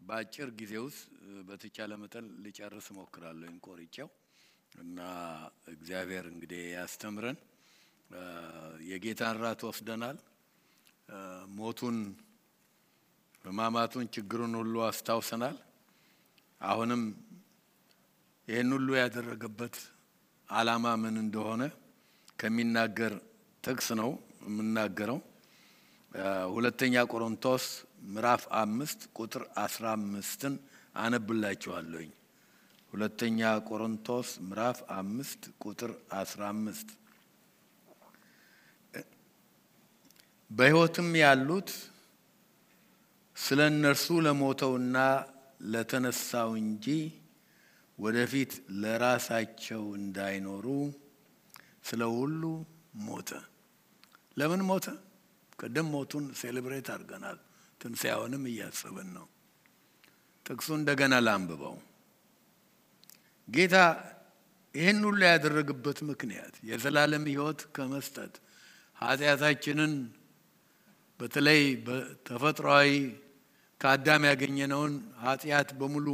በአጭር ጊዜ ውስጥ በተቻለ መጠን ልጨርስ ሞክራለሁ እንቆርጬው እና እግዚአብሔር እንግዲህ ያስተምረን የጌታን ራት ወስደናል ሞቱን በማማቱን ችግሩን ሁሉ አስታውሰናል አሁንም ይሄን ሁሉ ያደረገበት ዓላማ ምን እንደሆነ ከሚናገር ጥቅስ ነው የምናገረው ሁለተኛ ቆሮንቶስ ምዕራፍ 5 ቁጥር 15ን አነብላችኋለሁ ሁለተኛ ቆሮንቶስ ምዕራፍ 5 ቁጥር 15 በሕይወትም ያሉት ስለነርሱ ለሞተውና ለተነሳው እንጂ ወደፊት ለራሳቸው እንዳይኖሩ ስለሁሉ ሞተ ለምን ሞተ ቀደም ሞቱን ሴሌብሬት አድርገናል ትንሣኤውንም እያሰብን ነው ጥቅሱ እንደገና ላንብበው ጌታ ይሄን ሁሉ ያደረገበት ምክንያት የዘላለም ሕይወት ከመስጠት ኃጢአታችንን በተለይ በተፈጥሯዊ ከአዳም ያገኘነውን ኃጢአት በሙሉ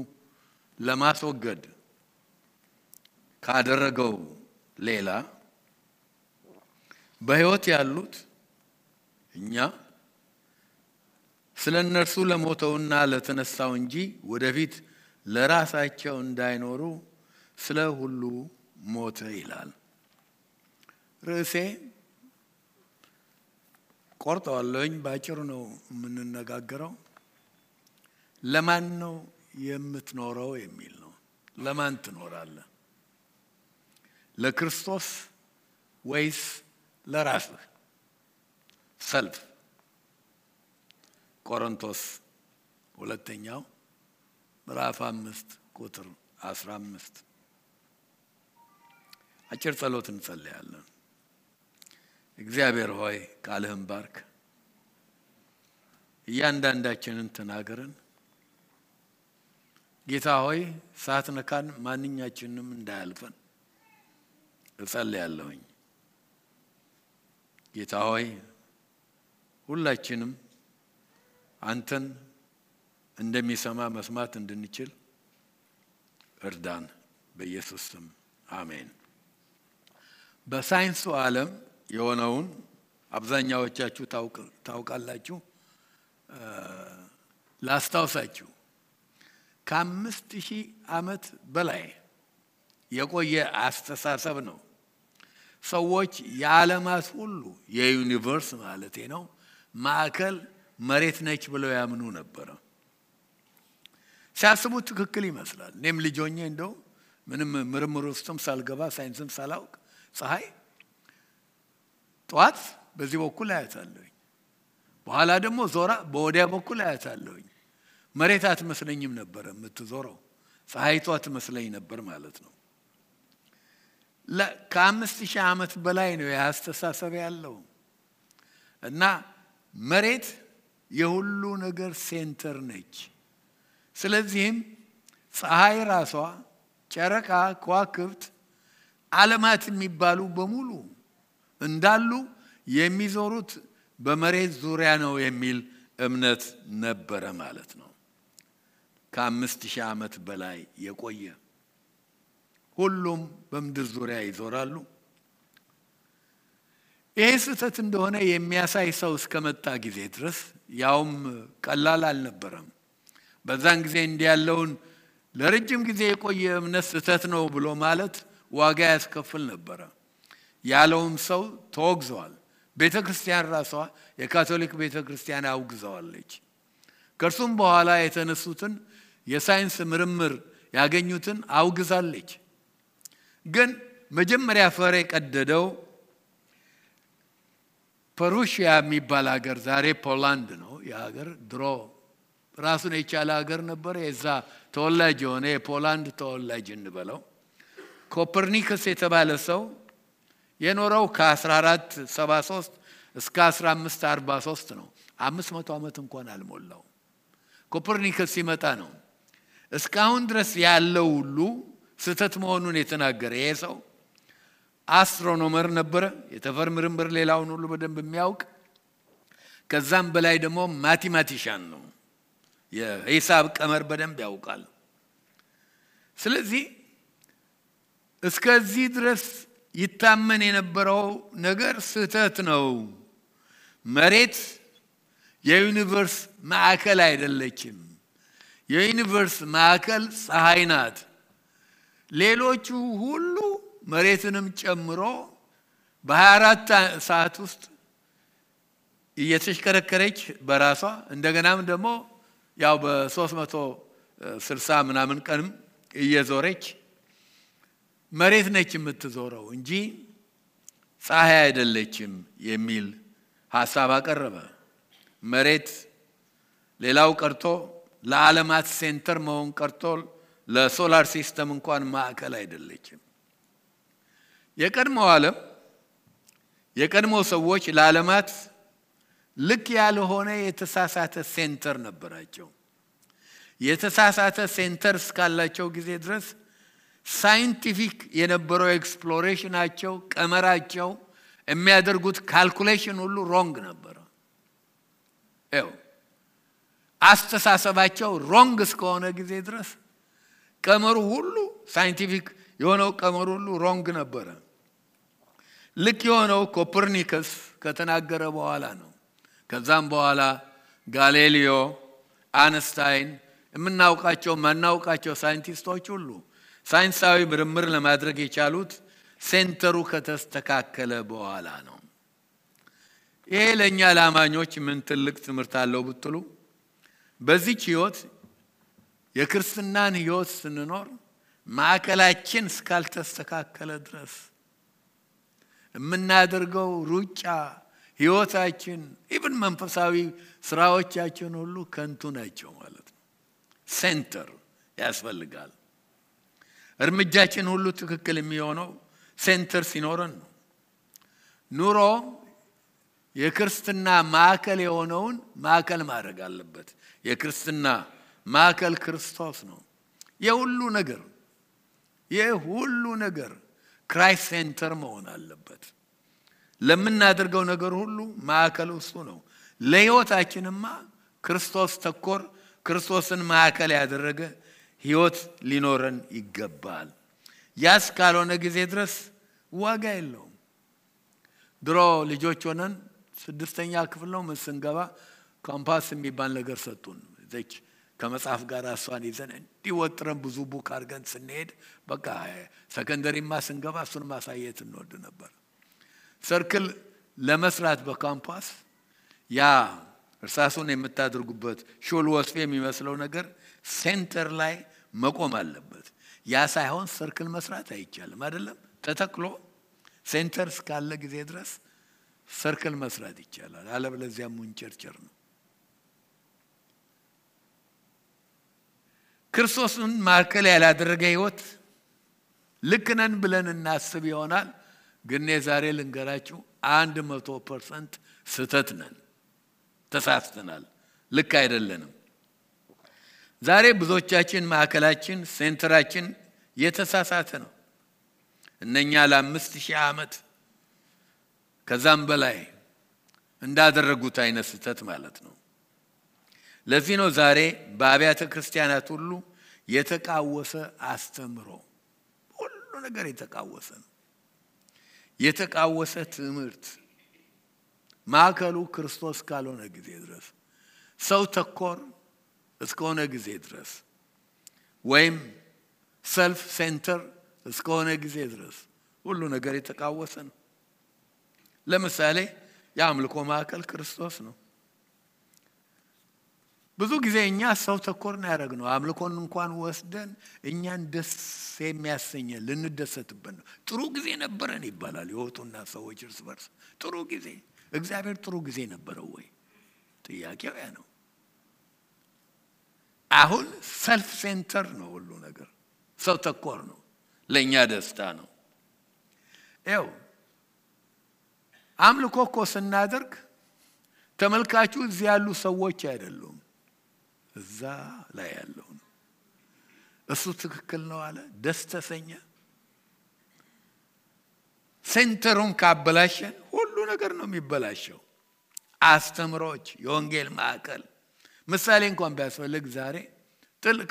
ለማስወገድ ካደረገው ሌላ በሕይወት ያሉት እኛ ስለነርሱ ለሞተውና ለተነሳው እንጂ ወደፊት ለራሳቸው እንዳይኖሩ ስለ ሁሉ ሞተ ይላል ርዕሴ ቆርጠዋለሁኝ ባጭሩ ነው የምንነጋገረው ለማን ነው የምትኖረው የሚል ነው ለማን ትኖራለህ ለክርስቶስ ወይስ ለራስህ ሰልፍ ቆሮንቶስ ሁለተኛው ምዕራፍ 5 ቁጥር 15 አጭር ጸሎት እንጸልያለን እግዚአብሔር ሆይ ቃልህን ባርክ እያንዳንዳችንን ተናገረን ጌታ ሆይ ሳትነካን ማንኛችንንም እንዳያልፈን እጸልያለሁኝ ጌታ ሆይ ሁላችንም አንተን እንደሚሰማ መስማት እንድንችል እርዳን በኢየሱስ ስም አሜን በሳይንሱ ዓለም የሆነውን አብዛኛዎቻችሁ ታውቃላችሁ ላስታውሳችሁ ከ5000 ዓመት በላይ የቆየ አስተሳሰብ ነው ሰዎች የዓለማት ሁሉ የዩኒቨርስ ማለቴ ነው ማዕከል መሬት ነች ብለው ያምኑ ነበር ሲያስቡት ትክክል ይመስላል እኔም ልጅ ሆኜ እንደው ምንም ምርምር ውስጥም ሳልገባ ሳይንስም ሳላውቅ ፀሐይ ጧት በዚህ በኩል አያታለሁኝ በኋላ ደግሞ ዞራ በወዲያ በኩል አያታለሁኝ መሬት አትመስለኝም ነበር የምትዞረው ፀሐይቷ ትመስለኝ ነበር ማለት ነው ከ5000 ዓመት በላይ ነው ያስተሳሰብ ያለው እና መሬት የሁሉ ነገር ሴንተር ነች ስለዚህም ፀሐይ ራሷ ጨረቃ ከዋክብት ዓለማት የሚባሉ በሙሉ እንዳሉ የሚዞሩት በመሬት ዙሪያ ነው የሚል እምነት ነበረ ማለት ነው ከ5000 ዓመት በላይ የቆየ ሁሉም በምድር ዙሪያ ይዞራሉ ይህ ስህተት እንደሆነ የሚያሳይ ሰው እስከመጣ ጊዜ ድረስ ያውም ቀላል አልነበረም በዛን ጊዜ እንዲያለውን ለረጅም ጊዜ የቆየ እምነት ስህተት ነው ብሎ ማለት ዋጋ ያስከፍል ነበር ያለውም ሰው ተወግዟል ቤተክርስቲያን ራሷ የካቶሊክ ቤተክርስቲያን አውግዘዋለች ከርሱም በኋላ የተነሱትን የሳይንስ ምርምር ያገኙትን አውግዛለች ግን መጀመሪያ ፈር የቀደደው ፐሩሺያ የሚባል ሀገር ዛሬ ፖላንድ ነው የሀገር ድሮ ራሱን የቻለ ሀገር ነበር የዛ ተወላጅ የሆነ የፖላንድ ተወላጅ እንበለው ኮፐርኒከስ የተባለ ሰው የኖረው ከ1473 እስከ 1543 ነው 500 ዓመት እንኳን አልሞላው ኮፐርኒከስ ሲመጣ ነው እስካሁን ድረስ ያለው ሁሉ ስህተት መሆኑን የተናገረ ይሄ ሰው አስትሮኖመር ነበር የተፈር ምርምር ሌላውን ሁሉ በደንብ የሚያውቅ ከዛም በላይ ደግሞ ማቴማቲሻን ነው የሂሳብ ቀመር በደንብ ያውቃል። ስለዚህ እስከዚህ ድረስ ይታመን የነበረው ነገር ስህተት ነው። መሬት የዩኒቨርስ ማዕከል አይደለችም። የዩኒቨርስ ማዕከል ፀሐይ ናት። ሌሎቹ ሁሉ መሬትንም ጨምሮ በ24 ሰዓት ውስጥ እየተሽከረከረች በራሷ እንደገናም ደግሞ ያው በ360 ምናምን ቀንም እየዞረች መሬት ነች የምትዞረው እንጂ ፀሐይ አይደለችም የሚል ሐሳብ አቀረበ። መሬት ሌላው ቀርቶ ለዓለማት ሴንተር መሆን ቀርቶ ለሶላር ሲስተም እንኳን ማዕከል አይደለችም። የቀድሞ ሰዎች ለዓለማት ልክ ያልሆነ የተሳሳተ ሴንተር ነበራቸው። የተሳሳተ ሴንተር እስካላቸው ጊዜ ድረስ ሳይንቲፊክ የነበረው ኤክስፕሎሬሽናቸው ቀመራቸው የሚያደርጉት ካልኩሌሽን ሁሉ ሮንግ ነበር። አስተሳሰባቸው ሮንግ እስከሆነ ጊዜ ድረስ ቀመሩ ሁሉ ሳይንቲፊክ የሆነው ቀመሩ ሁሉ ሮንግ ነበር። ልክ የሆነው ኮፐርኒከስ ከተናገረ በኋላ ነው። ከዛም በኋላ ጋሊሌዮ፣ አንስታይን የምናውቃቸው ማናውቃቸው ሳይንቲስቶች ሁሉ ሳይንሳዊ ምርምር ለማድረግ የቻሉት ሴንተሩ ከተስተካከለ በኋላ ነው። ይሄ ለኛ ለአማኞች ምን ትልቅ ትምህርት አለው ብትሉ በዚህ ህይወት የክርስትናን ህይወት ስንኖር ማዕከላችን እስካልተስተካከለ ድረስ የምናደርገው ሩጫ ህይወታችን ኢቭን መንፈሳዊ ስራዎቻችን ሁሉ ከንቱ ናቸው ማለት ነው። ሴንተር ያስፈልጋል። እርምጃችን ሁሉ ትክክል የሚሆነው ሴንተር ሲኖረን ነው። ኑሮ የክርስትና ማዕከል የሆነውን ማዕከል ማድረግ አለበት። የክርስትና ማዕከል ክርስቶስ ነው። የሁሉ ነገር ክራይስት ሴንተር መሆን አለበት። ለምናደርገው ነገር ሁሉ ማዕከሉ እሱ ነው። ለህይወታችንማ ክርስቶስ ተኮር ክርስቶስን ማዕከል ያደረገ ህይወት ሊኖረን ይገባል። ያስ ካልሆነ ጊዜ ድረስ ዋጋ የለውም። ድሮ ልጆች ሆነን 6ኛ ክፍል ነው ስንገባ ኮምፓስ የሚባል ነገር ሰጡን። እዚች ከመጽሐፍ ጋር እሷን ይዘን እንዲወጥረን ብዙ ቡክ አድርገን ስንሄድ በቃ ሰከንደሪማ ስንገባ እሱን ማሳየት እንወድ ነበር። ሰርክል ለመስራት በካምፓስ ያ እርሳሱን የምታደርጉበት ሹል ወስፌ የሚመስለው ነገር ሴንተር ላይ መቆም አለበት። ያ ሳይሆን ሰርክል መስራት አይቻልም አይደለም። ተተክሎ ሴንተር እስካለ ጊዜ ድረስ ሰርክል መስራት ይቻላል። አለበለዚያ ሙንጨርጨር ነው። ክርስቶስን ማዕከል ያላደረገ ህይወት ልክ ነን ብለን እናስብ ይሆናል። ግን ዛሬ ልንገራችሁ 100% ስህተት ነን። ተሳስተናል። ልክ አይደለንም። ዛሬ ብዙዎቻችን ማዕከላችን ሴንተራችን የተሳሳተ ነው። እነኛ ለ5000 ዓመት ከዛም በላይ እንዳደረጉት አይነት ስህተት ማለት ነው። ለዚህ ነው ዛሬ በአብያተ ክርስቲያናት ሁሉ የተቃወሰ አስተምሮ ሁሉ ነገር የተቃወሰ ነው። የተቃወሰ ትምህርት ማዕከሉ ክርስቶስ ካልሆነ ጊዜ ድረስ ሰው ተኮር እስከሆነ ጊዜ ድረስ ወይም ሰልፍ ሴንተር እስከሆነ ጊዜ ድረስ ሁሉ ነገር የተቃወሰ ነው። ለምሳሌ የአምልኮ ማዕከል ክርስቶስ ነው። ብዙ ጊዜ እኛ ሰው ተኮር ነው ያደረግነው። አምልኮን እንኳን ወስደን እኛን ደስ የሚያሰኘን ልንደሰትበት ነው። ጥሩ ጊዜ ነበረን ይባላል የወጡና ሰዎች እርስ በርስ ጥሩ ጊዜ። እግዚአብሔር ጥሩ ጊዜ ነበረው ወይ? ጥያቄው ያ ነው። አሁን ሰልፍ ሴንተር ነው ሁሉ ነገር። ሰው ተኮር ነው። ለኛ ደስታ ነው። አምልኮ እኮ ስናደርግ ተመልካቹ እዚህ ያሉ ሰዎች አይደሉም፣ እዛ ላይ ያለው ነው። እሱ ትክክል ነው አለ፣ ደስ ተሰኘ። ሴንተሩን ካበላሸን ሁሉ ነገር ነው የሚበላሸው። አስተምሮች፣ የወንጌል ማዕከል ምሳሌ እንኳን ቢያስፈልግ ዛሬ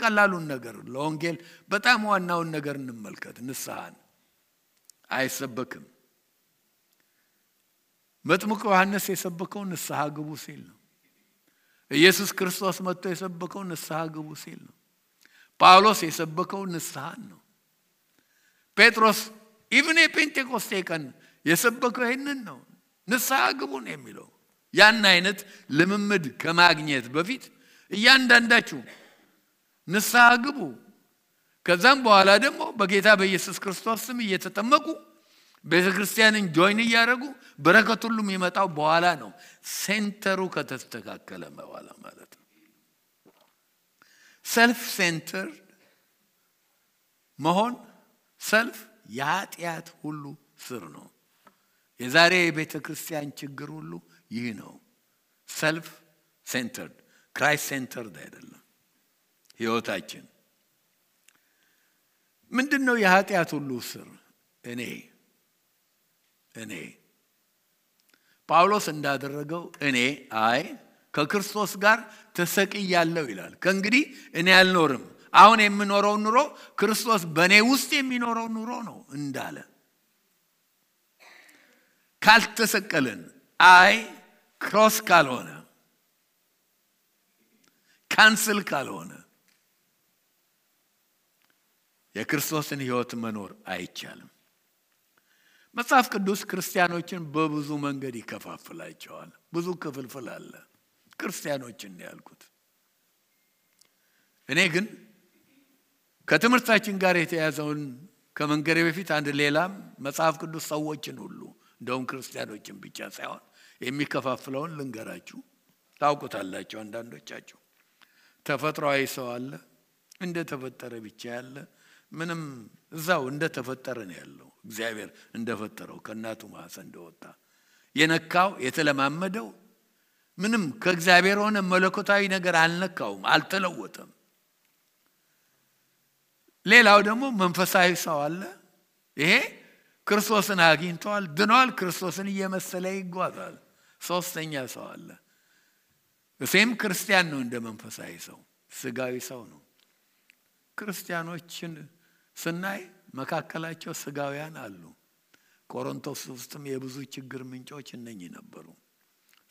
ቀላሉን ነገር ለወንጌል በጣም ዋናውን ነገር እንመልከት። ንስሐን አይሰበክም። መጥምቁ ዮሐንስ የሰበከው ንስሐ ግቡ ሲል ነው። ኢየሱስ ክርስቶስ መጥቶ የሰበከው ንስሐ ግቡ ሲል ነው። ጳውሎስ የሰበከው ንስሐን ነው። ጴጥሮስ ኢቭን የጴንጤቆስጤ ቀን የሰበከው ይሄንን ነው። ንስሐ ግቡ ነው የሚለው። ያን አይነት ልምምድ ከማግኘት በፊት እያንዳንዳችሁ ንስሐ ግቡ፣ ከዛም በኋላ ደግሞ በጌታ በኢየሱስ ክርስቶስ ስም እየተጠመቁ ቤተክርስቲያንን ጆይን እያደረጉ በረከት ሁሉ የሚመጣው በኋላ ነው። ሴንተሩ ከተስተካከለ በኋላ ማለት ነው። ሰልፍ ሴንተር መሆን ሰልፍ የኃጢአት ሁሉ ስር ነው። የዛሬ የቤተክርስቲያን ችግር ሁሉ ይህ ነው። ሰልፍ ሴንተርድ ክራይስት ሴንተርድ አይደለም ህይወታችን። ምንድነው የኃጢአት ሁሉ ስር? እኔ ጳውሎስ እንዳደረገው እኔ ከክርስቶስ ጋር ተሰቅያለሁ ይላል። ከእንግዲህ እኔ አልኖርም፣ አሁን የምኖረው ኑሮ ክርስቶስ በእኔ ውስጥ የሚኖረው ኑሮ ነው እንዳለ። ካልተሰቀልን ክሮስ ካልሆነ ካንስል ካልሆነ የክርስቶስን ህይወት መኖር አይቻልም። መጽሐፍ ቅዱስ ክርስቲያኖችን በብዙ መንገድ ይከፋፍላቸዋል። ብዙ ክፍልፍል አለ ክርስቲያኖችን ያልኩት። እኔ ግን ከትምህርታችን ጋር የተያዘውን ከመንገሬ በፊት አንድ ሌላም መጽሐፍ ቅዱስ ሰዎችን ሁሉ እንደውም ክርስቲያኖችን ብቻ ሳይሆን የሚከፋፍለውን ልንገራችሁ። ታውቁታላችሁ አንዳንዶቻችሁ። ተፈጥሯዊ ሰው አለ፣ እንደ ተፈጠረ ብቻ ያለ፣ ምንም እዛው እንደ ተፈጠረ ነው ያለው። እግዚአብሔር እንደፈጠረው ከእናቱ ማህፀን እንደወጣ የነካው የተለማመደው ምንም ከእግዚአብሔር ሆነ መለኮታዊ ነገር አልነካውም፣ አልተለወጠም። ሌላው ደግሞ መንፈሳዊ ሰው አለ። ይሄ ክርስቶስን አግኝቷል፣ ድኗል፣ ክርስቶስን እየመሰለ ይጓዛል። ሶስተኛ ሰው አለ። እሴም ክርስቲያን ነው እንደ መንፈሳዊ ሰው፣ ስጋዊ ሰው ነው። ክርስቲያኖችን ስናይ መካከላቸው ስጋውያን አሉ። ቆሮንቶስ ውስጥም የብዙ ችግር ምንጮች እነኚህ ነበሩ፣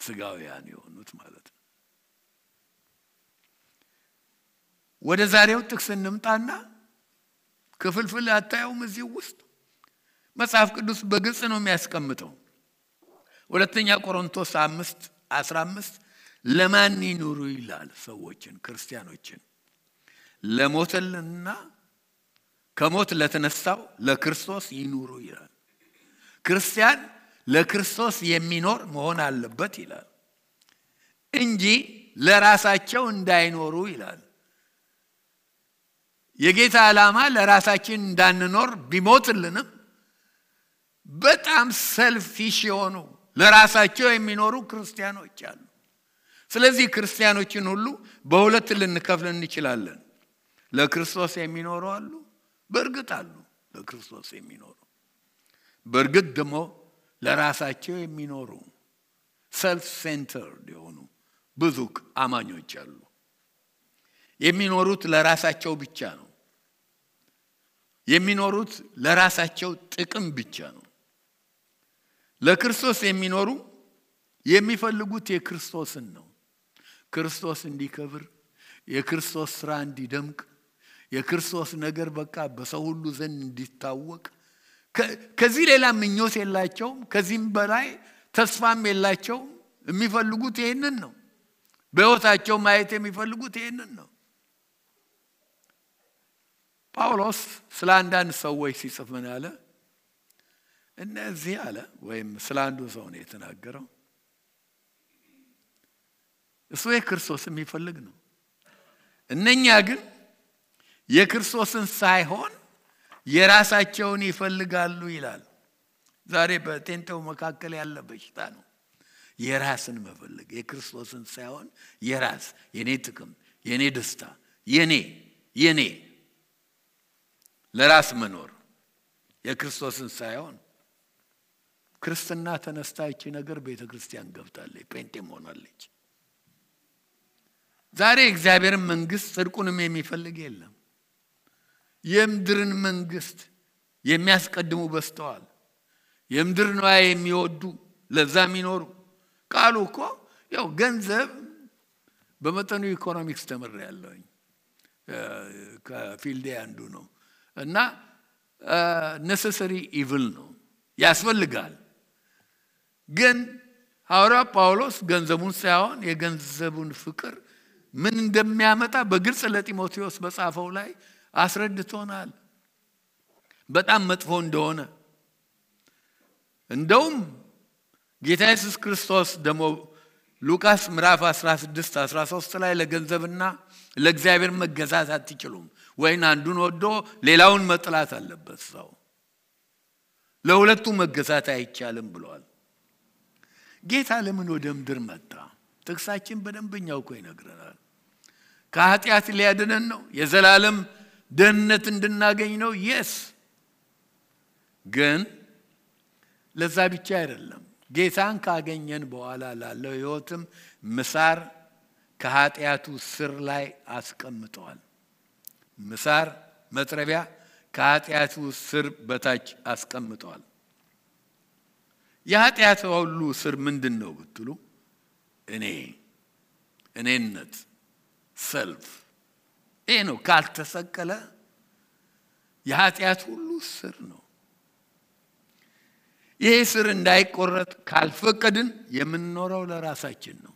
ስጋውያን የሆኑት ማለት ነው። ወደ ዛሬው ጥቅስ እንምጣና ክፍልፍል አታዩም? እዚህ ውስጥ መጽሐፍ ቅዱስ በግልጽ ነው የሚያስቀምጠው። ሁለተኛ ቆሮንቶስ 5:15 ለማን ይኑሩ ይላል? ሰዎችን፣ ክርስቲያኖችን ለሞተልና ከሞት ለተነሳው ለክርስቶስ ይኑሩ ይላል። ክርስቲያን ለክርስቶስ የሚኖር መሆን አለበት ይላል እንጂ ለራሳቸው እንዳይኖሩ ይላል። የጌታ ዓላማ ለራሳችን እንዳንኖር ቢሞትልንም በጣም ሰልፊሽ የሆኑ ለራሳቸው የሚኖሩ ክርስቲያኖች አሉ። ስለዚህ ክርስቲያኖችን ሁሉ በሁለት ልንከፍል እንችላለን። ለክርስቶስ የሚኖሩ አሉ፣ በእርግጥ አሉ ለክርስቶስ የሚኖሩ። በእርግጥ ደግሞ ለራሳቸው የሚኖሩ ሰልፍ ሴንተርድ የሆኑ ብዙ አማኞች አሉ። የሚኖሩት ለራሳቸው ብቻ ነው። የሚኖሩት ለራሳቸው ጥቅም ብቻ ነው። ለክርስቶስ የሚኖሩ የሚፈልጉት የክርስቶስን ነው። ክርስቶስ እንዲከብር፣ የክርስቶስ ስራ እንዲደምቅ፣ የክርስቶስ ነገር በቃ በሰው ሁሉ ዘንድ እንዲታወቅ። ከዚህ ሌላ ምኞት የላቸውም። ከዚህም በላይ ተስፋም የላቸውም። የሚፈልጉት ይሄንን ነው። በሕይወታቸው ማየት የሚፈልጉት ይሄንን ነው። ጳውሎስ ስለ አንዳንድ ሰዎች ሲጽፍ ምን አለ? እነዚህ አለ፣ ወይም ስለ አንዱ ሰው ነው የተናገረው። እሱ የክርስቶስ የሚፈልግ ነው። እነኛ ግን የክርስቶስን ሳይሆን የራሳቸውን ይፈልጋሉ ይላል። ዛሬ በቴንተው መካከል ያለ በሽታ ነው የራስን መፈለግ። የክርስቶስን ሳይሆን የራስ፣ የኔ ጥቅም፣ የኔ ደስታ፣ የኔ ለራስ መኖር፣ የክርስቶስን ሳይሆን። ክርስትና ተነስታች ነገር ቤተክርስቲያን ገብታለች፣ ጴንጤም ሆናለች። ዛሬ እግዚአብሔርን መንግስት ጽድቁንም የሚፈልግ የለም። የምድርን መንግስት የሚያስቀድሙ በስተዋል። የምድር ንዋይ የሚወዱ ለዛ የሚኖሩ ቃሉ እኮ ያው ገንዘብ በመጠኑ ኢኮኖሚክስ ተመርያለሁኝ ከፊልዴ አንዱ ነው እና necessary evil ነው ያስፈልጋል። ግን ሐዋርያው ጳውሎስ ገንዘቡን ሳይሆን የገንዘቡን ፍቅር ምን እንደሚያመጣ በግልጽ ለጢሞቴዎስ በጻፈው ላይ አስረድቶናል። በጣም መጥፎ እንደሆነ እንደውም ጌታ ኢየሱስ ክርስቶስ ደግሞ ሉቃስ ምዕራፍ 16-13 ላይ ለገንዘብና ለእግዚአብሔር መገዛት አትችሉም ወይን አንዱን ወዶ ሌላውን መጥላት አለበት ሰው ለሁለቱ መገዛት አይቻልም ብሏል። ጌታ ለምን ወደ ምድር መጣ? ጥቅሳችን በደንበኛው እኮ ይነግረናል። ከኃጢአት ሊያድነን ነው። የዘላለም ደህንነት እንድናገኝ ነው። yes ግን ለዛ ብቻ አይደለም። ጌታን ካገኘን በኋላ ላለው ህይወትም ምሳር ከኃጢአቱ ስር ላይ አስቀምጧል። ምሳር መጥረቢያ ከኃጢአቱ ስር በታች አስቀምጧል። የኃጢአት ሁሉ ስር ምንድነው ብትሉ እኔነት ሰልፍ ይሄ ነው። ካልተሰቀለ የኃጢአት ሁሉ ስር ነው። ይሄ ስር እንዳይቆረጥ ካልፈቀድን የምንኖረው ለራሳችን ነው።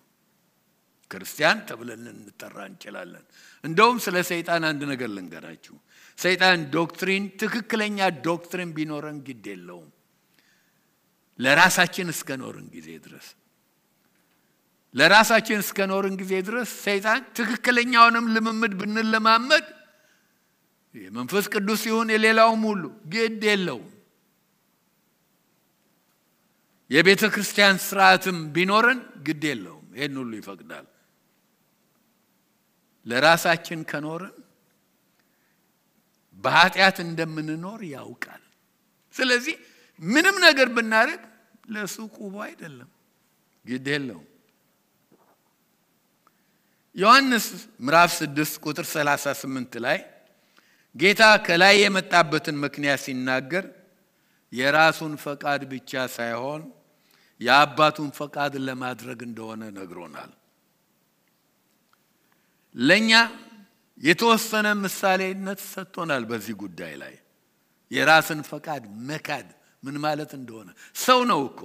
ክርስቲያን ተብለን እንጠራ እንችላለን። እንደውም ስለ ሰይጣን አንድ ነገር ልንገራችሁ። ሰይጣን ዶክትሪን ትክክለኛ ዶክትሪን ቢኖረን ግድ የለውም ለራሳችን እስከኖርን ጊዜ ድረስ ለራሳችን እስከኖርን ጊዜ ድረስ ሰይጣን ትክክለኛውንም ልምምድ ብንለማመድ የመንፈስ ቅዱስ ይሁን የሌላውም ሁሉ ግድ የለውም። የቤተ ክርስቲያን ስርዓትም ቢኖርን ግድ የለውም። ይሄን ሁሉ ይፈቅዳል። ለራሳችን ከኖርን በኃጢአት እንደምንኖር ያውቃል። ስለዚህ ምንም ነገር ብናደርግ ለሱቁ አይደለም ግድ የለውም። ዮሐንስ ምዕራፍ 6 ቁጥር 38 ላይ ጌታ ከላይ የመጣበትን ምክንያት ሲናገር የራሱን ፈቃድ ብቻ ሳይሆን የአባቱን ፈቃድ ለማድረግ እንደሆነ ነግሮናል። ለኛ የተወሰነ ምሳሌነት ሰጥቶናል በዚህ ጉዳይ ላይ የራስን ፈቃድ መካድ ምን ማለት እንደሆነ። ሰው ነው እኮ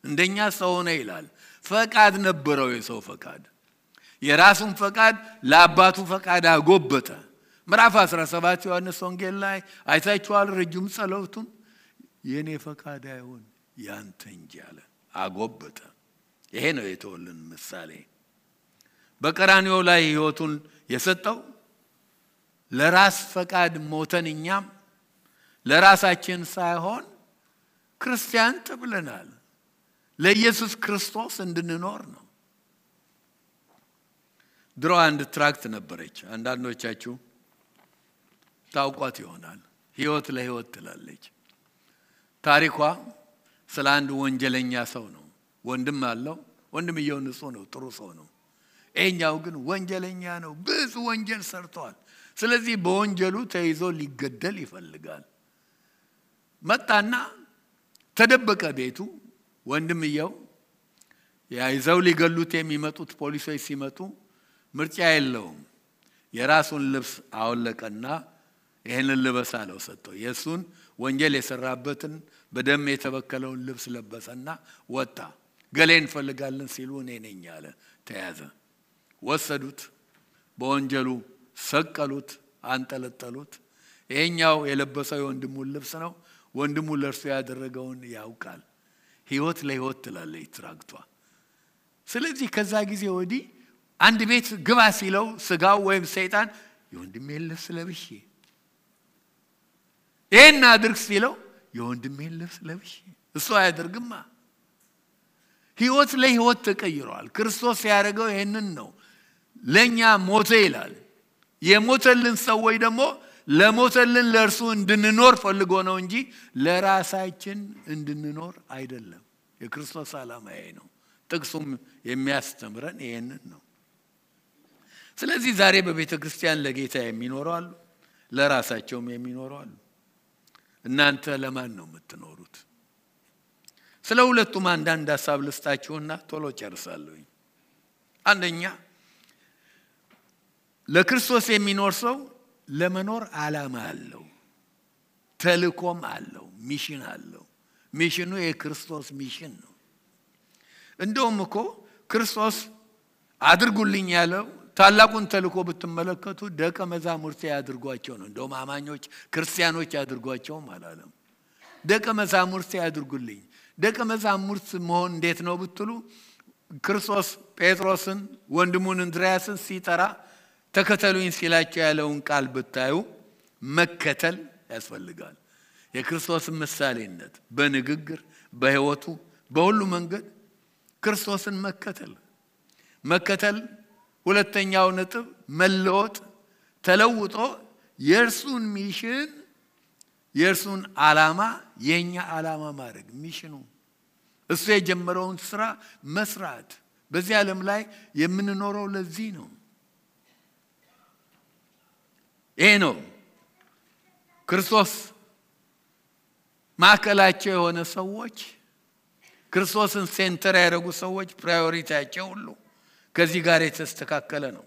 እንደኛ ሰው ነው ይላል። ፈቃድ ነበረው የሰው ፈቃድ። የራሱን ፈቃድ ለአባቱ ፈቃድ አጎበጠ። ምዕራፍ 17 ዮሐንስ ወንጌል ላይ አይታችኋል። ረጅም ጸሎቱን የኔ ፈቃድ አይሁን ያንተ እንጂ አለ። አጎበጠ። ይሄ ነው የተወልን ምሳሌ። በቀራንዮ ላይ ህይወቱን የሰጠው ለራስ ፈቃድ ሞተን እኛም ለራሳችን ሳይሆን ክርስቲያን ተብለናል ለኢየሱስ ክርስቶስ እንድንኖር ነው። ድሮ አንድ ትራክት ነበረች። አንዳንዶቻችሁ ታውቋት ይሆናል። ህይወት ለህይወት ትላለች። ታሪኳ ስለ አንድ ወንጀለኛ ሰው ነው። ወንድም አለው። ወንድምየው ንጹህ ነው፣ ጥሩ ሰው ነው። እኛው ግን ወንጀለኛ ነው። ብዙ ወንጀል ሰርቷል። ስለዚህ በወንጀሉ ተይዞ ሊገደል ይፈልጋል። መጣና ተደበቀ ቤቱ። ወንድምየው ያይዘው ሊገሉት የሚመጡት ፖሊሶች ሲመጡ ምርጫ የለውም። የራሱን ልብስ አወለቀና ይሄንን ልበስ አለው ሰጠው። የሱን ወንጀል የሰራበትን በደም የተበከለውን ልብስ ለበሰና ወጣ። ገሌን ፈልጋለን ሲሉ እኔ ነኝ አለ። ተያዘ። ወሰዱት። በወንጀሉ ሰቀሉት፣ አንጠለጠሉት። ይሄኛው የለበሰው የወንድሙን ልብስ ነው። ወንድሙ ለርሱ ያደረገውን ያውቃል። ህይወት ለህይወት ትላለች ትራክቷ። ስለዚህ ከዛ ጊዜ ወዲህ አንድ ቤት ግባ ሲለው ስጋው ወይም ሰይጣን የወንድሜን ልብስ ለብሼ ይሄን አድርግ ሲለው የወንድሜን ልብስ ለብሼ እሱ አያደርግማ። ህይወት ለህይወት ተቀይሯል። ክርስቶስ ያደረገው ይሄንን ነው። ለኛ ሞተ ይላል። የሞተልን ሰዎች ደግሞ ለሞተልን ለርሱ እንድንኖር ፈልጎ ነው እንጂ ለራሳችን እንድንኖር አይደለም። የክርስቶስ ዓላማ ይሄ ነው። ጥቅሱም የሚያስተምረን ይሄንን ነው። ስለዚህ ዛሬ በቤተ ክርስቲያን ለጌታ የሚኖሩ አሉ፣ ለራሳቸውም የሚኖሩ አሉ። እናንተ ለማን ነው የምትኖሩት? ስለ ሁለቱም አንዳንድ ሐሳብ ልስጣችሁና ቶሎ ጨርሳለሁ። አንደኛ ለክርስቶስ የሚኖር ሰው ለመኖር ዓላማ አለው፣ ተልእኮም አለው፣ ሚሽን አለው። ሚሽኑ የክርስቶስ ሚሽን ነው። እንደውም እኮ ክርስቶስ አድርጉልኝ ያለው ታላቁን ተልእኮ ብትመለከቱ ደቀ መዛሙርት ያድርጓቸው ነው። እንደውም አማኞች ክርስቲያኖች ያድርጓቸውም አላለም። ደቀ መዛሙርት ያድርጉልኝ። ደቀ መዛሙርት መሆን እንዴት ነው ብትሉ ክርስቶስ ጴጥሮስን ወንድሙን እንድርያስን ሲጠራ ተከተሉኝ ሲላቸው ያለውን ቃል ብታዩ መከተል ያስፈልጋል። የክርስቶስ ምሳሌነት በንግግር በህይወቱ በሁሉ መንገድ ክርስቶስን መከተል ሁለተኛው ነጥብ መለወጥ ተለውጦ የእርሱን ሚሽን የእርሱን ዓላማ የኛ ዓላማ ማድረግ ሚሽኑ እሱ የጀመረውን ስራ መስራት። በዚህ ዓለም ላይ የምንኖረው ለዚህ ነው። ይሄ ነው ክርስቶስ ማዕከላቸው የሆነ ሰዎች ክርስቶስን ሴንተር ያደረጉ ሰዎች ፕራዮሪቲያቸው ሁሉ ከዚህ ጋር የተስተካከለ ነው።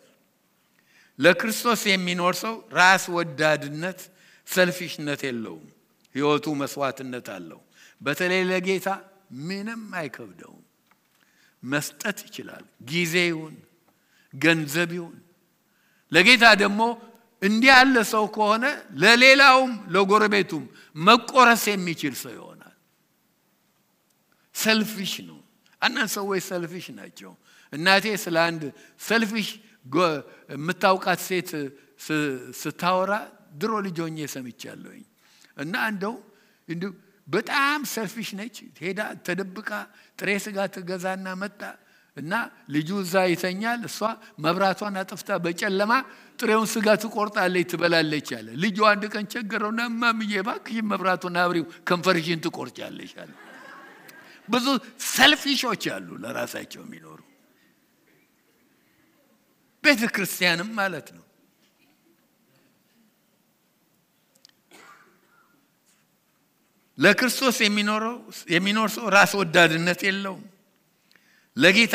ለክርስቶስ የሚኖር ሰው ራስ ወዳድነት ሰልፊሽነት የለውም። ህይወቱ መስዋዕትነት አለው። በተለይ ለጌታ ምንም አይከብደውም። መስጠት ይችላል። ጊዜውን ገንዘቡን ለጌታ ደግሞ እንዲህ ያለ ሰው ከሆነ ለሌላውም ለጎረቤቱም መቆረስ የሚችል ሰው ይሆናል። ሰልፊሽ ነው። አንዳንድ ሰዎች ሰልፊሽ ናቸው። እናቴ ስለ አንድ ሰልፊሽ የምታውቃት ሴት ስታወራ ድሮ ልጅ ሆኜ ሰምቻለሁኝ። እና እንደው በጣም ሰልፊሽ ነች። ሄዳ ተደብቃ ጥሬ ስጋ ትገዛና መጣ እና ልጁ እዛ ይተኛል። እሷ መብራቷን አጥፍታ በጨለማ ጥሬውን ስጋ ትቆርጣለች ትበላለች አለ። ልጁ አንድ ቀን ቸገረውና ማምዬ እባክሽ መብራቱን አብሪው ከንፈርሽን ትቆርጫለሽ አለ። ብዙ ሰልፊሾች አሉ ለራሳቸው የሚኖሩ ቤተ ክርስቲያንም ማለት ነው። ለክርስቶስ የሚኖር ሰው ራስ ወዳድነት የለውም። ለጌታ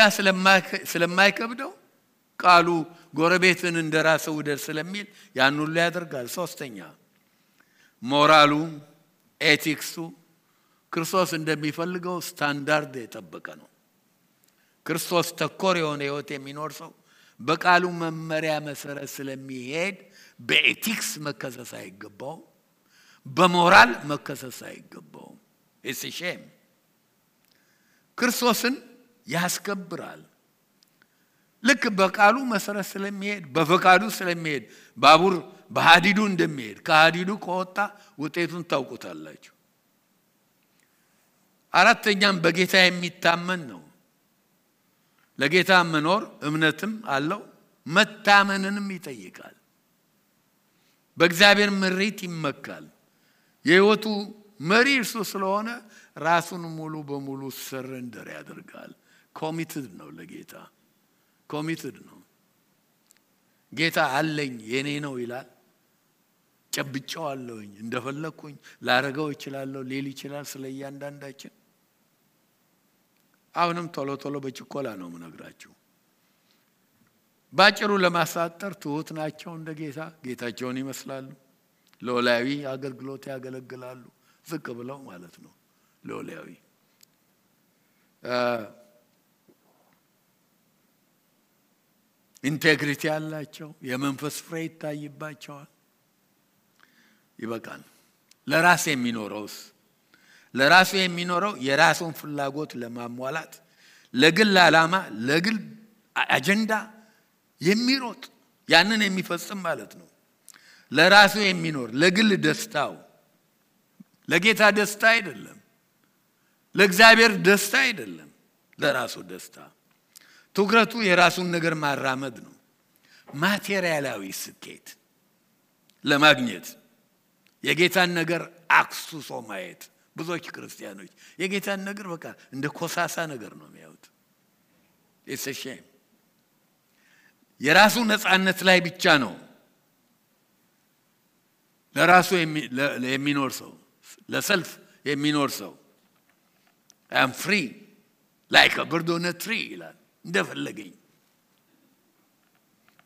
ስለማይከብደው ቃሉ ጎረቤትን እንደራስህ ውደድ ስለሚል ያን ሁሉ ያደርጋል። ሶስተኛ ሞራሉ ኤቲክሱ ክርስቶስ እንደሚፈልገው ስታንዳርድ የጠበቀ ነው። ክርስቶስ ተኮር የሆነ ህይወት የሚኖር ሰው በቃሉ መመሪያ መሰረት ስለሚሄድ በኤቲክስ መከሰስ አይገባውም። በሞራል መከሰስ አይገባውም። it's a shame። ክርስቶስን ያስከብራል። ልክ በቃሉ መሰረት ስለሚሄድ በፈቃዱ ስለሚሄድ ባቡር በሐዲዱ እንደሚሄድ ከሐዲዱ ከወጣ ውጤቱን ታውቁታላችሁ። አራተኛም በጌታ የሚታመን ነው። ለጌታ መኖር እምነትም አለው መታመንንም ይጠይቃል። በእግዚአብሔር ምሪት ይመካል። የህይወቱ መሪ እርሱ ስለሆነ ራሱን ሙሉ በሙሉ ሰረንደር ያደርጋል። ኮሚትድ ነው ለጌታ ኮሚትድ ነው። ጌታ አለኝ የኔ ነው ይላል። ጨብጨዋለሁኝ እንደፈለኩኝ ላረጋው ይችላልው ሊል ይችላል ስለያንዳንዳችን። አሁንም ቶሎ በችኮላ ነው ምነግራችሁ። ባጭሩ ለማሳጠር ትሁት ናቸው እንደ ጌታቸውን ይመስላሉ። ሎላዊ አገልግሎት ያገለግላሉ ዝቅ ብለው ማለት ነው። ሎላዊ ኢንቴግሪቲ ያላቸው የመንፈስ ፍሬ ይታይባቸዋል። ይበቃል። ለራሱ የሚኖረው የራሱን ፍላጎት ለማሟላት ለግል ዓላማ ለግል አጀንዳ የሚሮጥ ያንን የሚፈጽም ማለት ነው። ለራሱ የሚኖር ለግል ደስታው ለጌታ ደስታ አይደለም፣ ለእግዚአብሔር ደስታ አይደለም፣ ለራሱ ደስታ። ትኩረቱ የራሱን ነገር ማራመድ ነው። ማቴሪያላዊ ስኬት ለማግኘት የጌታን ነገር አክሱሶ ማየት። ብዙዎች ክርስቲያኖች የጌታን ነገር በቃ እንደ ኮሳሳ ነገር ነው የሚያዩት። it's a shame። የራሱ ነፃነት ላይ ብቻ ነው ለራሱ የሚኖር ሰው ለሰልፍ የሚኖር ሰው I am free like a bird on a tree ይላል እንደፈለገኝ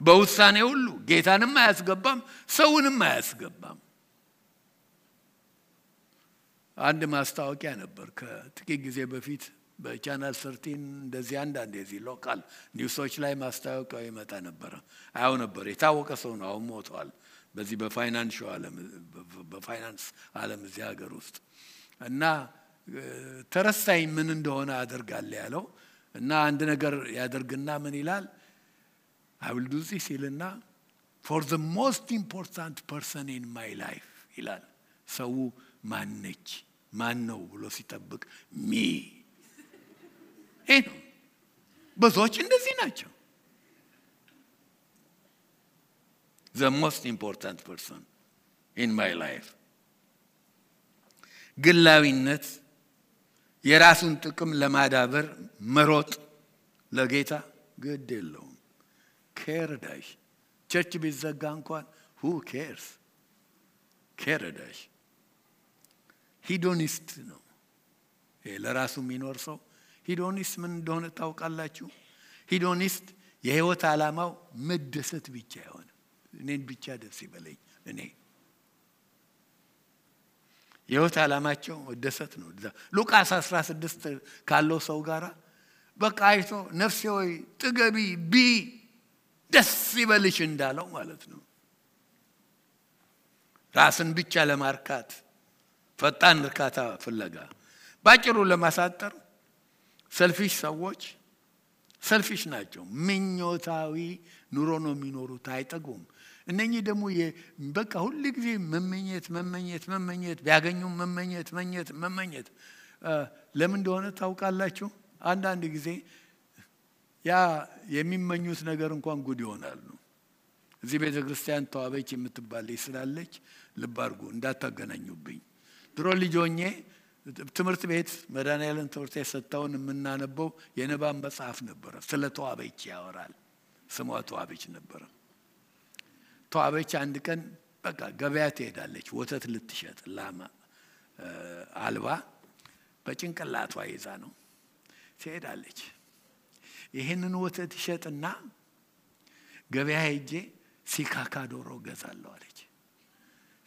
በውሳኔ ሁሉ ጌታንም አያስገባም ሰውንም አያስገባም አንድ ማስታወቂያ ነበር ከጥቂት ጊዜ በፊት በቻናል 13 እንደዚህ አንዳንድ የዚህ ሎካል ኒውሶች ላይ ማስታወቂያው ይመጣ ነበር አያው ነበር የታወቀ ሰው ነው አሁን ሞቷል በዚህ በፋይናንስ ዓለም እዚህ ሀገር ውስጥ እና ተረሳኝ ምን እንደሆነ አደርጋለሁ ያለው እና አንድ ነገር ያደርግና ምን ይላል I will do this ይልና for the most important person in my life ይላል ሰው ማነች ማን ነው ብሎ ሲጠብቅ ሚ ብዙዎች እንደዚህ ናቸው the most important person in my life ግላዊነት የራሱን ጥቅም ለማዳበር መሮጥ ለጌታ ግድ የለውም ከረዳሽ ቸርች ቢዘጋ እንኳን who cares ከረዳሽ ሂዶኒስት ነው ለራሱ የሚኖር ሰው ሂዶኒስት ምን እንደሆነ ታውቃላችሁ ሂዶኒስት የህይወት ዓላማው መደሰት ብቻ ይሆን እኔን ብቻ ደስ ይበለኝ እኔ የህይወት ዓላማቸው መደሰት ነው ሉቃስ 16 ካለው ሰው ጋራ በቃ አይቶ ነፍሴ ሆይ ጥገቢ ቢ ደስ ይበልሽ እንዳለው ማለት ነው ራስን ብቻ ለማርካት ፈጣን እርካታ ፍለጋ ባጭሩ ለማሳጠር ሰልፊሽ ሰዎች ሰልፊሽ ናቸው ምኞታዊ ኑሮ ነው የሚኖሩት አይጠጉም እነኚህ ደግሞ በቃ ሁሉ ጊዜ መመኘት ቢያገኙ መመኘት ለምን እንደሆነ ታውቃላችሁ አንዳንድ ጊዜ ያ የሚመኙት ነገር እንኳን ጉድ ይሆናል እዚህ ቤተክርስቲያን ተዋበች የምትባል ስላለች ልብ አድርጉ እንዳታገናኙብኝ ድሮ ልጆኜ ትምህርት ቤት መድኃኒዓለም ትምህርት የሰጠውን የምናነበው የንባብ መጽሐፍ ነበር ስለ ተዋበች ያወራል ስሟ ተዋበች ነበር ተዋበች አንድ ቀን በቃ ገበያ ትሄዳለች ወተት ልትሸጥ ላማ አልባ በጭንቅላቷ ይዛ ነው ትሄዳለች ይሄንን ወተት ይሸጥና ገበያ ሄጄ ሲካካ ዶሮ ገዛለሁ አለች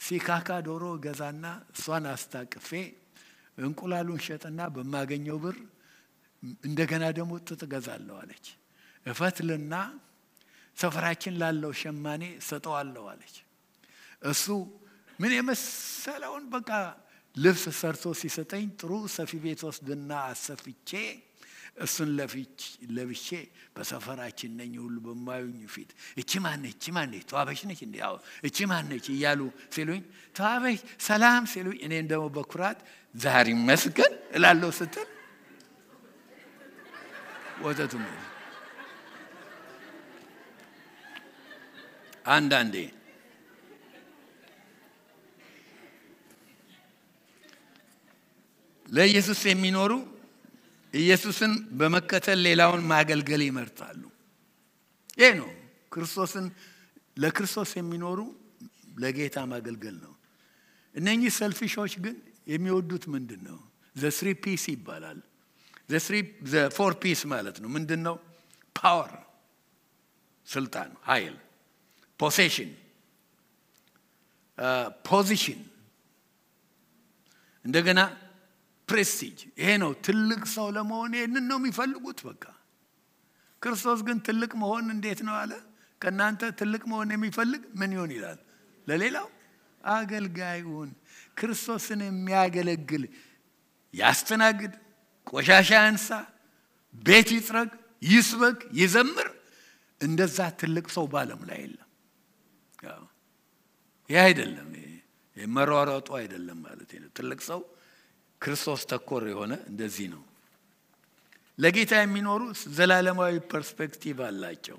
ሲካካ ዶሮ ገዛና እሷን አስታቅፌ እንቁላሉን ሸጥና በማገኘው ብር እንደገና ደግሞ ጥጥ ገዛለሁ አለች እፈትልና ሰፈራችን ላለው ሸማኔ ሰጠዋለሁ አለች እሱ ምን የመሰለውን በቃ ልብስ ሰርቶ ሲሰጠኝ ጥሩ ሰፊ ቤት ወስድና አሰፍቼ እሱን ለብሼ በሰፈራችን ነኝ ሁሉ በማዩኝ ፊት እቺ ማነች ተዋበች ነች እንዴ ያው እቺ ማነች እያሉ ሲሉኝ ተዋበች ሰላም ሲሉኝ እኔ እንደው በኩራት ዛሬ መስገን እላለሁ ስትል ወተቱ አንዳንዴ ለኢየሱስ የሚኖሩ ኢየሱስን በመከተል ሌላውን ማገልገል ይመርጣሉ ይሄ ነው ክርስቶስን ለክርስቶስ የሚኖሩ ለጌታ ማገልገል ነው እነኚህ ሰልፊሾች ግን የሚወዱት ምንድነው the 3 P's ይባላል the 4 P's ማለት ነው ምንድነው power ስልጣን ኃይል possession position እንደገና prestige ይሄ ነው ትልቅ ሰው ለመሆን ይሄንን ነው የሚፈልጉት በቃ ክርስቶስ ግን ትልቅ መሆን እንዴት ነው አለ ከናንተ ትልቅ መሆን የሚፈልግ ምን ይሆን ይላል ለሌላው አገልጋዩን ክርስቶስን የሚያገለግል ያስተናግድ ቆሻሻ ያንሳ ቤት ይጥረግ ይስበክ ይዘምር እንደዛ ትልቅ ሰው ባለም ላይ የለም ያ አይደለም የመሯሯጡ አይደለም ማለት ነው ትልቅ ሰው ክርስቶስ ተኮር የሆነ እንደዚህ ነው ለጌታ የሚኖሩ ዘላለማዊ ፐርስፔክቲቭ አላቸው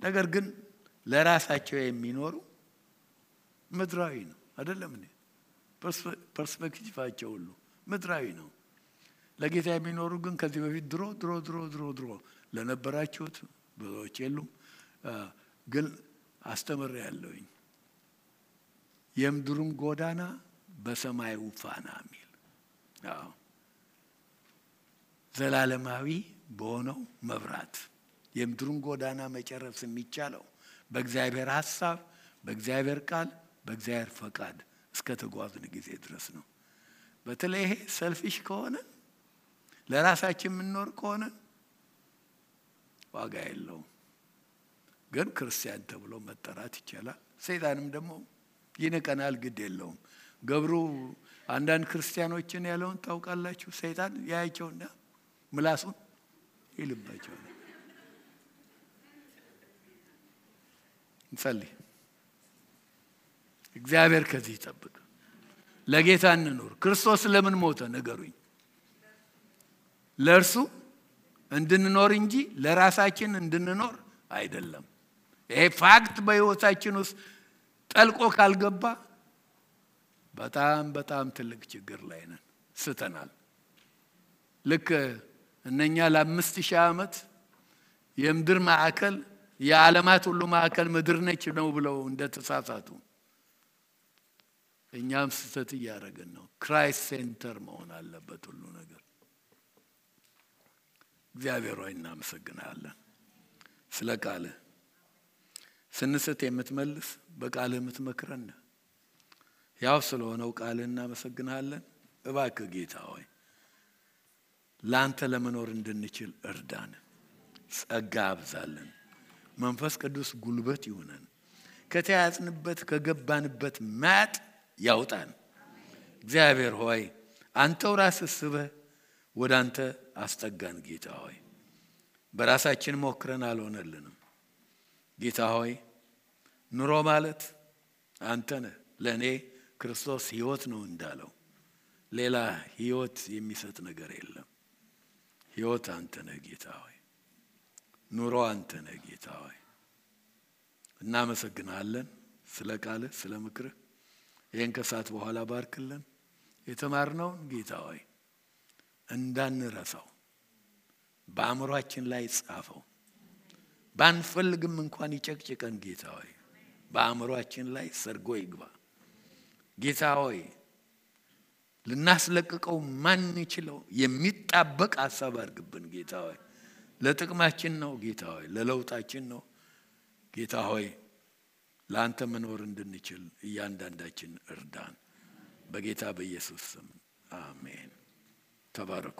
ነገር ግን ለራሳቸው የሚኖሩ ምድራዊ ነው አይደለም እንዴ ፐርስፔክቲቫቸው ሁሉ ምድራዊ ነው ለጌታ የሚኖሩ ግን ከዚህ በፊት ድሮ ለነበራችሁት ብዙዎች የሉም ግን አስተምሬያለሁኝ። የምድሩም ጎዳና በሰማዩ ፋና ሚል ዘላለማዊ በሆነው መብራት የምድሩን ጎዳና መጨረስ የሚቻለው በእግዚአብሔር ሐሳብ፣ በእግዚአብሔር ቃል፣ በእግዚአብሔር ፈቃድ እስከ ተጓዝን ጊዜ ድረስ ነው። በተለይ ይሄ ሰልፊሽ ከሆነ ለራሳችን የምንኖር ከሆነ ዋጋ የለውም። ግን ክርስቲያን ተብሎ መጠራት ይቻላል። ሰይጣንም ደግሞ ይነቀናል፣ ግድ የለውም። ገብሩ አንዳንድ ክርስቲያኖችን ያለውን ታውቃላችሁ? ሰይጣን ያያቸውና ምላሱን ይልባቸዋል። እንጸልይ። እግዚአብሔር ከዚህ ይጠብቅ። ለጌታ እንኖር። ክርስቶስ ለምን ሞተ ንገሩኝ? ለእርሱ እንድንኖር እንጂ ለራሳችን እንድንኖር አይደለም። ይሄ ፋክት በሕይወታችን ውስጥ ጠልቆ ካልገባ በጣም በጣም ትልቅ ችግር ላይ ነን፣ ስተናል። ልክ እነኛ ለ5000 ዓመት የምድር ማዕከል የዓለማት ሁሉ ማዕከል ምድር ነች ነው ብለው እንደተሳሳቱ እኛም ስተት እያደረግን ነው። ክራይስት ሴንተር መሆን አለበት ሁሉ ነገር። እግዚአብሔር ሆይ እናመሰግናለን ስለ ቃልህ። ስንስት የምትመልስ በቃልህ የምትመክረን ያው ስለሆነው ቃልህ እናመሰግናለን። እባክህ ጌታ ሆይ ላንተ ለመኖር እንድንችል እርዳን፣ ጸጋ አብዛለን። መንፈስ ቅዱስ ጉልበት ይሁነን፣ ከተያዝንበት ከገባንበት ማጥ ያውጣን። እግዚአብሔር ሆይ አንተው ራስህ ስበህ ወደ አንተ አስጠጋን። ጌታ ሆይ በራሳችን ሞክረን አልሆነልንም። ጌታ ሆይ ኑሮ ማለት አንተ ነህ። ለእኔ ክርስቶስ ሕይወት ነው እንዳለው ሌላ ሕይወት የሚሰጥ ነገር የለም። ሕይወት አንተ ነህ ጌታ ሆይ፣ ኑሮ አንተ ነህ ጌታ ሆይ። እናመሰግናለን ስለ ቃልህ፣ ስለ ምክርህ። ይህን ከሰዓት በኋላ ባርክልን። የተማርነውን ጌታ ሆይ እንዳንረሳው በአእምሯችን ላይ ጻፈው። ባንፈልግም እንኳን ይጨቅጭቀን ጌታ ሆይ፣ በአእምሯችን ላይ ሰርጎ ይግባ ጌታ ሆይ። ልናስለቅቀው ማንችለው የሚጣበቅ ሐሳብ አድርግብን ጌታ ሆይ። ለጥቅማችን ነው ጌታ ሆይ፣ ለለውጣችን ነው ጌታ ሆይ። ለአንተ መኖር እንድንችል እያንዳንዳችን እርዳን። በጌታ በኢየሱስ ስም አሜን። ተባረኩ።